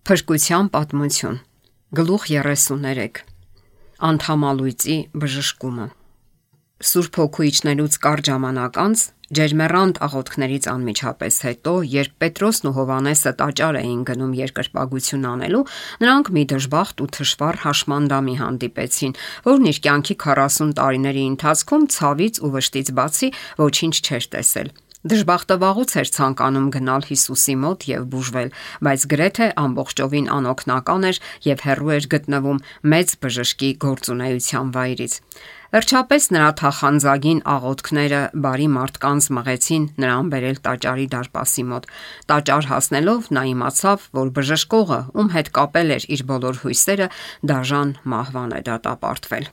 Փրկության պատմություն։ Գլուխ 33։ Անդամալույծի բժշկումը։ Սուրբ Հոգու իջնելուց կարճ ժամանակ անց, ջերմեռանդ աղոթքներից անմիջապես հետո, երբ Պետրոսն ու Հովհաննեսը տաճար էին գնում երկրպագություն անելու, նրանք մի դժբախտ ու թշվառ հաշմանդամի հանդիպեցին, որն իր կյանքի 40 տարիների ընթացքում ցավից ու վշտից բացի ոչինչ չէր տեսել։ Դժբախտը վաղուց էր ցանկանում գնալ Հիսուսի մոտ եւ բուժվել, բայց գրեթե ամբողջովին անօգնական էր եւ հեռու էր գտնվում մեծ բժշկի գործունեության վայրից։ Վերջապես նրա թախանձագին աղոթքները բարի մարդկանց մղեցին նրան բերել տաճարի դարպասի մոտ։ Տաճար հասնելով նա իմացավ, որ բժշկողը, ում հետ կապել էր իր բոլոր հույսերը, դաժան մահվան է դատապարտվել։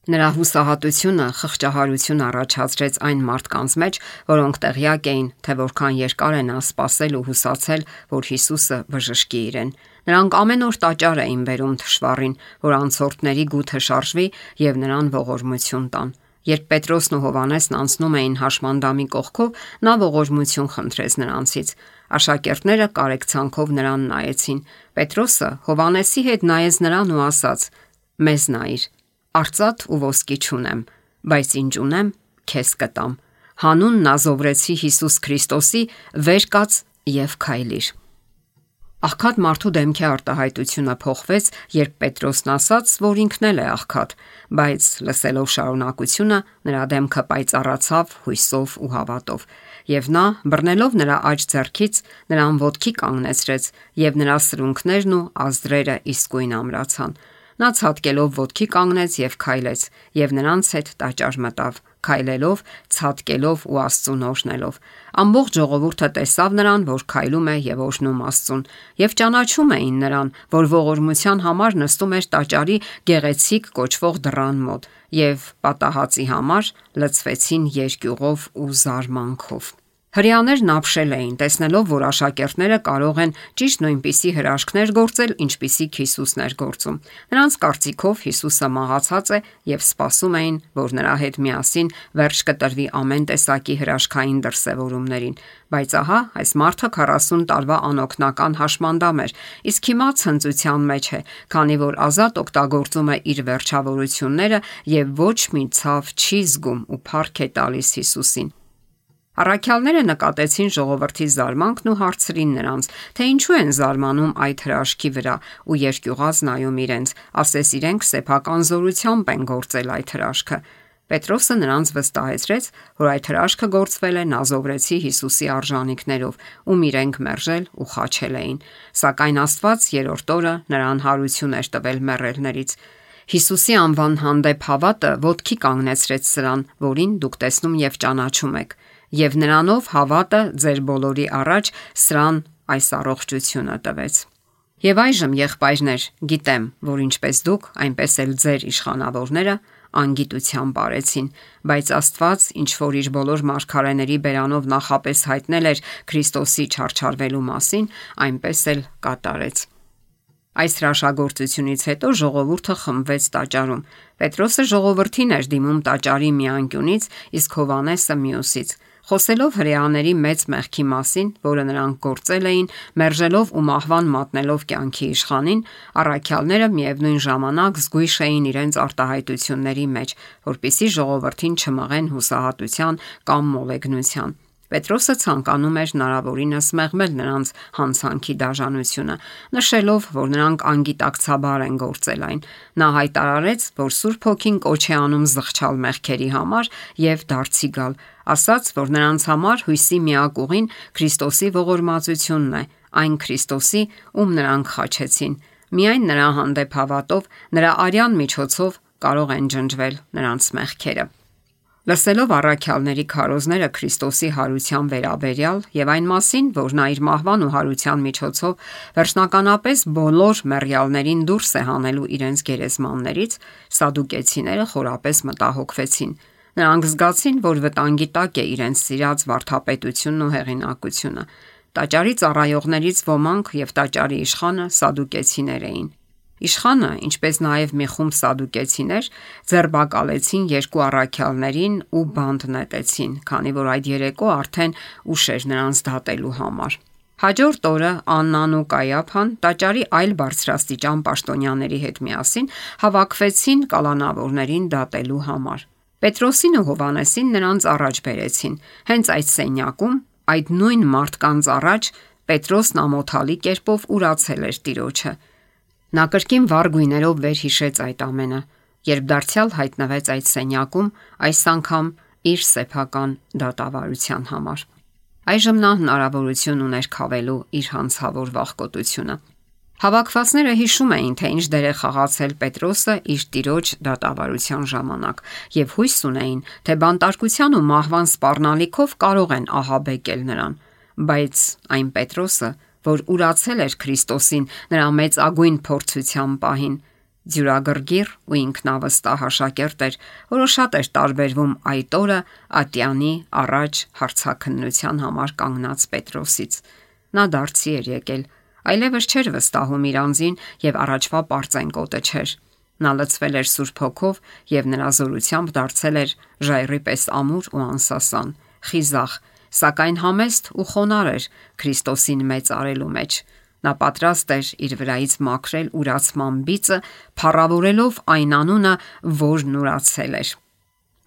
Նրա հուսահատությունը խղճահարություն առաջացրեց այն մարդկանց մեջ, որոնք տեղյակ էին, թե որքան երկար է նա սպասել ու հուսացել, որ Հիսուսը բժշկի իրեն։ Նրանք ամեն օր տաճար էին բերում թշվառին, որ անցորդների գութը շարժվի եւ նրան ողորմություն տան։ Երբ Պետրոսն ու Հովհաննեսն անցնում էին հաշմանդամի կողքով, նա ողորմություն խնդրեց նրանցից։ Աշակերտները կարեկցանքով նրան նայեցին։ Պետրոսը Հովհաննեսի հետ նայեց նրան ու ասաց. «Մեզ նայիր, արծաթ ու ոսկի չունեմ, բայց ինչ ունեմ, քեզ կտամ։ Հանուն Նազովրեցի Հիսուս Քրիստոսի վեր կաց եւ քայլիր»։ Աղքատ մարդու դեմքի արտահայտությունը փոխվեց, երբ Պետրոսն ասաց, որ ինքն էլ է աղքատ, բայց լսելով շարունակությունը, նրա դեմքը պայծառացավ հույսով ու հավատով, եւ նա, բռնելով նրա աջ ձեռքից, նրան ոտքի կանգնեցրեց, եւ նրա սրունքներն ու ազդրերը իսկույն ամրացան։ Նա ցատկելով ոտքի կանգնեց եւ քայլեց, եւ նրանց հետ տաճար մտավ, քայլելով, ցատկելով ու Աստծուն օրհնելով։ Ամբողջ ժողովուրդը տեսավ նրան, որ քայլում է եւ օրհնում Աստծուն, եւ ճանաչում էին նրան, որ ողորմության համար նստում էր տաճարի գեղեցիկ կոչվող դռան մոտ, եւ պատահածի համար լցվեցին երկյուղով ու զարմանքով։ Հրեաներն ապշել էին, տեսնելով, որ աշակերտները կարող են ճիշտ նույնպիսի հրաշքներ գործել, ինչպիսիք Հիսուսն էր գործում։ Նրանց կարծիքով Հիսուսը մահացած է եւ սպասում էին, որ նրա հետ միասին վերջ կտրվի ամեն տեսակի հրաշքային դրսևորումներին։ Բայց ահա, այս մարդը 40 տարվա անօգնական հաշմանդամ էր, իսկ հիմա ցնծության մեջ է, քանի որ ազատ օգտագործում է իր վերջավորությունները եւ ոչ մի ցավ չի զգում ու փառք է տալիս Հիսուսին։ Առաքյալները նկատեցին ժողովրդի զարմանքն ու հարցրին նրանց, թե ինչու են զարմանում այդ հրաշքի վրա ու երկյուղած նայում իրենց, ասես իրենք սեփական զորությամբ են գործել այդ հրաշքը։ Պետրոսը նրանց վստահեցրեց, որ այդ հրաշքը գործվել է Նազովրեցի Հիսուսի արժանինքներով, ում իրենք մերժել ու խաչել էին։ Սակայն Աստված երրորդ օրը նրան հարություն էր տվել մեռելներից։ Հիսուսի անվան հանդեպ հավատը ոտքի կանգնեցրեց սրան, որին դուք տեսնում եւ ճանաչում եք, եւ նրանով հավատը ձեր բոլորի առաջ սրան այս առողջությունը տվեց։ Եվ այժմ, եղբայրներ, գիտեմ, որ ինչպես դուք, այնպես էլ ձեր իշխանավորները անգիտությամբ արեցին, բայց Աստված, ինչ որ իր բոլոր մարգարեների բերանով նախապես հայտնել էր Քրիստոսի չարչարվելու մասին, այնպես էլ կատարեց։ Այս հրաշագործությունից հետո ժողովուրդը խմբվեց տաճարում։ Պետրոսը ժողովրդին էր դիմում տաճարի մի անկյունից, իսկ Հովհաննեսը մյուսից։ Խոսելով հրեաների մեծ մեղքի մասին, որը նրանք գործել էին, մերժելով ու մահվան մատնելով կյանքի իշխանին, առաքյալները միևնույն ժամանակ զգույշ էին իրենց արտահայտությունների մեջ, որպեսզի ժողովրդին չմղեն հուսահատության կամ մոլեգնության։ Պետրոսը ցանկանում էր հնարավորինս մեղմել նրանց հանցանքի դաժանությունը, նշելով, որ նրանք անգիտակցաբար են գործել այն։ Նա հայտարարեց, որ Սուրբ Հոգին կոչ է անում զղջալ մեղքերի համար եւ դարձի գալ, ասաց, որ նրանց համար հույսի միակ ուղին Քրիստոսի ողորմածությունն է, այն Քրիստոսի, ում նրանք խաչեցին։ Միայն նրա հանդեպ հավատով, նրա արյան միջոցով կարող են ջնջվել նրանց մեղքերը։ Լսելով առաքյալների քարոզները Քրիստոսի հարության վերաբերյալ եւ այն մասին, որ նա իր մահվան ու հարության միջոցով վերջնականապես բոլոր մեռյալներին դուրս է հանելու իրենց գերեզմաններից, սադուկեցիները խորապես մտահոգվեցին։ Նրանք զգացին, որ վտանգի տակ է իրենց սիրած վարդապետությունն ու հեղինակությունը։ Տաճարի ծառայողներից ոմանք եւ տաճարի իշխանը սադուկեցիներ էին։ Իշխանը, ինչպես նաև մի խումբ սադուկեցիներ, ձերբակալեցին երկու առաքյալներին ու բանտ նետեցին, քանի որ այդ երեկո արդեն ուշ էր նրանց դատելու համար։ Հաջորդ օրը Աննան ու Կայափան տաճարի այլ բարձրաստիճան պաշտոնյաների հետ միասին հավաքվեցին կալանավորներին դատելու համար։ Պետրոսին ու Հովհաննեսին նրանց առաջ բերեցին։ Հենց այդ սենյակում, այդ նույն մարդկանց առաջ Պետրոսն ամոթալի կերպով ուրացել էր Տիրոջը։ Նա կրկին վառ գույներով վերհիշեց այդ ամենը, երբ դարձյալ հայտնվեց այդ սենյակում, այս անգամ իր սեփական դատավարության համար։ Այժմ նա հնարավորություն ուներ քավելու իր հանցավոր վախկոտությունը։ Հավաքվածները հիշում էին, թե ինչ դեր է խաղացել Պետրոսը իր Տիրոջ դատավարության ժամանակ, եւ հույս ունեին, թե բանտարկության ու մահվան սպառնալիքով կարող են ահաբեկել նրան, բայց այն Պետրոսը, որ ուրացել էր Քրիստոսին նրա մեծագույն փորձության պահին, ձյուրագրգիռ ու ինքնավստահ աշակերտ էր, որը շատ էր տարբերվում այդ օրը ատյանի առաջ հարցաքննության համար կանգնած Պետրոսից։ Նա դարձի էր եկել, այլևս չէր վստահում իր անձին եւ առաջվա պարծենկոտը չէր։ Նա լցվել էր Սուրբ Հոգով եւ նրա զորությամբ դարձել էր ժայռի պես ամուր ու անսասան, խիզախ, սակայն համեստ ու խոնարհ էր Քրիստոսին մեծ արելու մեջ։ Նա պատրաստ էր իր վրայից մաքրել ուրացման բիծը, փառավորելով այն անունը, որն ուրացել էր։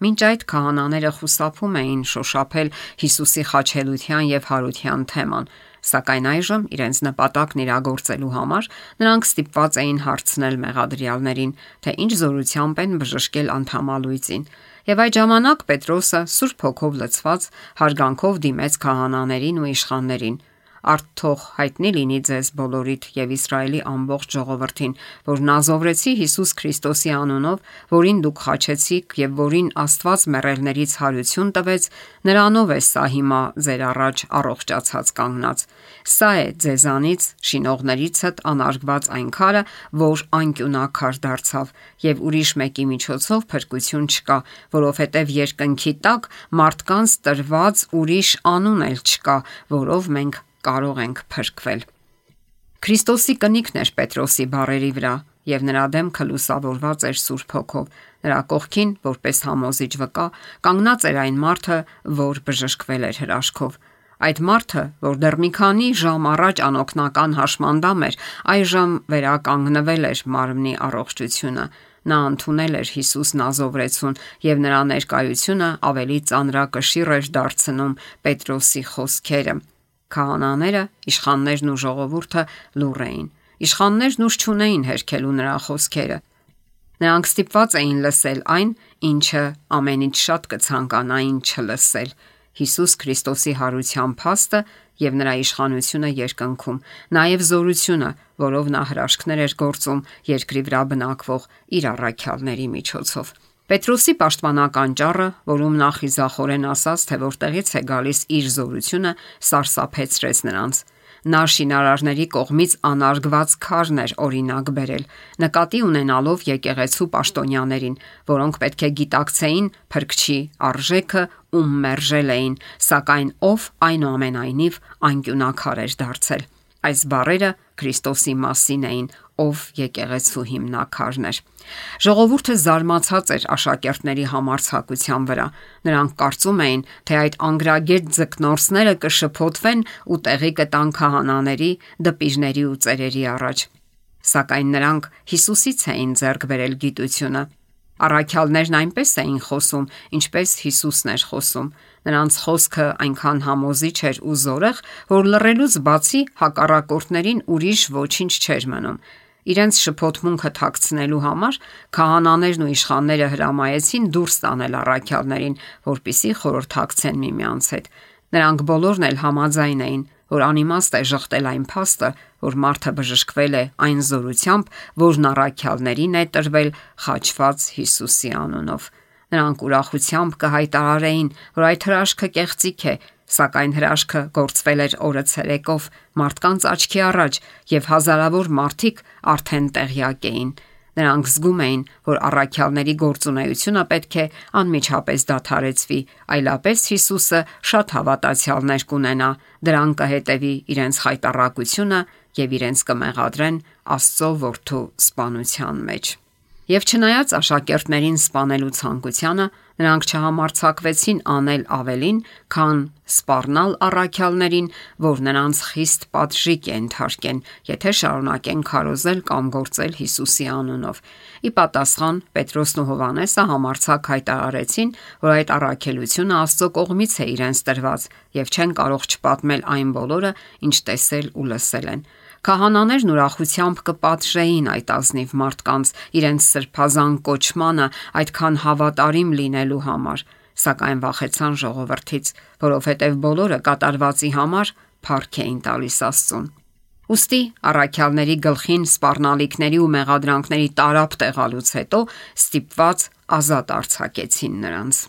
Մինչ այդ քահանաները խուսափում էին շոշափել Հիսուսի խաչելության եւ հարության թեման, սակայն այժմ իրենց նպատակն իրագործելու համար նրանք ստիպված էին հարցնել մեղադրյալներին, թե ինչ զորությամբ են բժշկել անդամալույծին։ Եվ այդ ժամանակ Պետրոսը Սուրբ Հոգով լցված հարգանքով դիմեց քահանաներին ու իշխաններին. «Արդ թող հայտնի լինի ձեզ բոլորիդ եւ Իսրայելի ամբողջ ժողովրդին, որ նազովրեցի Հիսուս Քրիստոսի անունով, որին դուք խաչեցիք եւ որին Աստված մեռելներից հարություն տվեց, նրանով է սա հիմա ձեր առաջ առողջացած կանգնած։ Սա է ձեզանից շինողներիցդ անարգված այն քարը, որ անկյունակար դարձավ, եւ ուրիշ մեկի միջոցով փրկություն չկա, որովհետեւ երկնքի տակ մարդկանց տրված ուրիշ անուն էլ չկա, որով մենք կարող ենք փրկվել»։ Քրիստոսի կնիքն էր Պետրոսի բառերի վրա, եւ նրա դեմքը լուսավորված էր Սուրբ Հոգով։ Նրա կողքին, որպես համոզիչ վկա, կանգնած էր այն մարդը, որ բժշկվել էր հրաշքով։ Այդ մարդը, որ դեռ մի քանի ժամ առաջ անօգնական հաշմանդամ էր, այժմ վերականգնվել էր մարմնի առողջությունը։ Նա ընդունել էր Հիսուս Նազովրեցուն եւ նրա ներկայությունը ավելի ծանրակշիռ էր դարձնում Պետրոսի խոսքերը։ Քահանաները, իշխաններն ու ժողովուրդը լուռ էին։ Իշխաններն ուժ չունեին հերքելու նրա խոսքերը։ Նրանք ստիպված էին լսել այն, ինչը ամենից շատ կցանկանային չլսել՝ Հիսուս Քրիստոսի հարության փաստը եւ նրա իշխանությունը երկնքում, նաեւ զորությունը, որով նա հրաշքներ էր գործում երկրի վրա բնակվող իր առաքյալների միջոցով։ Պետրոսի պաշտպանական ճառը, որում նա խիզախորեն ասաց, թե որտեղից է գալիս իր զորությունը, սարսափեցրեց նրանց։ Նա շինարարների կողմից անարգված քարն էր օրինակ բերել, նկատի ունենալով եկեղեցու պաշտոնյաներին, որոնք պետք է գիտակցեին Փրկչի արժեքը, ում մերժել էին, սակայն ով այնուամենայնիվ անկյունակար էր դարձել։ Այս բառերը Քրիստոսի մասին էին, ով եկեղեցու հիմնաքարն էր։ Ժողովուրդը զարմացած էր աշակերտների համարձակության վրա։ Նրանք կարծում էին, թե այդ անգրագետ ձկնորսները կշփոթվեն ու տեղի կտան քահանաների, դպիժների ու ծերերի առաջ։ Սակայն նրանք Հիսուսից էին ձեռք բերել գիտությունը։ Առաքյալներն այնպես էին խոսում, ինչպես Հիսուսն էր խոսում։ Նրանց խոսքը այնքան համոզիչ էր ու զորեղ, որ լռելուց բացի հակառակորդներին ուրիշ ոչինչ չէր մնում։ Իրենց շփոթմունքը թաքցնելու համար քահանաներն ու իշխանները հրամայեցին դուրս տանել առաքյալներին, որպեսզի խորհրդակցեն միմյանց հետ։ Նրանք բոլորն էլ համաձայն էին, որ անիմաստ է ժխտել այն փաստը, որ մարդը բժշկվել է այն զորությամբ, որն առաքյալներին է տրվել խաչված Հիսուսի անունով։ Նրանք ուրախությամբ կհայտարարեին, որ այդ հրաշքը կեղծիք է, սակայն հրաշքը գործվել էր օրը ցերեկով մարդկանց աչքի առաջ եւ հազարավոր մարդիկ արդեն տեղյակ էին։ Նրանք զգում էին, որ առաքյալների գործունեությունը պետք է անմիջապես դադարեցվի, այլապես Հիսուսը շատ հավատացյալներ կունենա, դրան կհետևի իրենց խայտառակությունը եւ իրենց կմեղադրեն Աստծո որդու սպանության մեջ։ Եվ չնայած աշակերտներին սպանելու ցանկությանը, Նրանք չհամարձակվեցին անել ավելին, քան սպառնալ առաքյալներին, որ նրանց խիստ պատժիկ է ենթարկեն, եթե շարունակեն քարոզել կամ գործել Հիսուսի անունով։ Ի պատասխան Պետրոսն ու Հովհաննեսը համարձակ հայտարարեցին, որ այդ առաքելությունը Աստծո կողմից է իրենց տրված եւ չեն կարող չպատմել այն բոլորը, ինչ տեսել ու լսել են։ Քահանաներն ուրախությամբ կպատժեին այդ ազնիվ մարդկանց իրենց սրբազան կոչմանը այդքան հավատարիմ լինելու համար, սակայն վախեցան ժողովրդից, որովհետև բոլորը կատարվածի համար փառք էին տալիս Աստծուն։ Ուստի առաքյալների գլխին սպառնալիքների ու մեղադրանքների տարափ տեղալուց հետո ստիպված ազատ արձակեցին նրանց։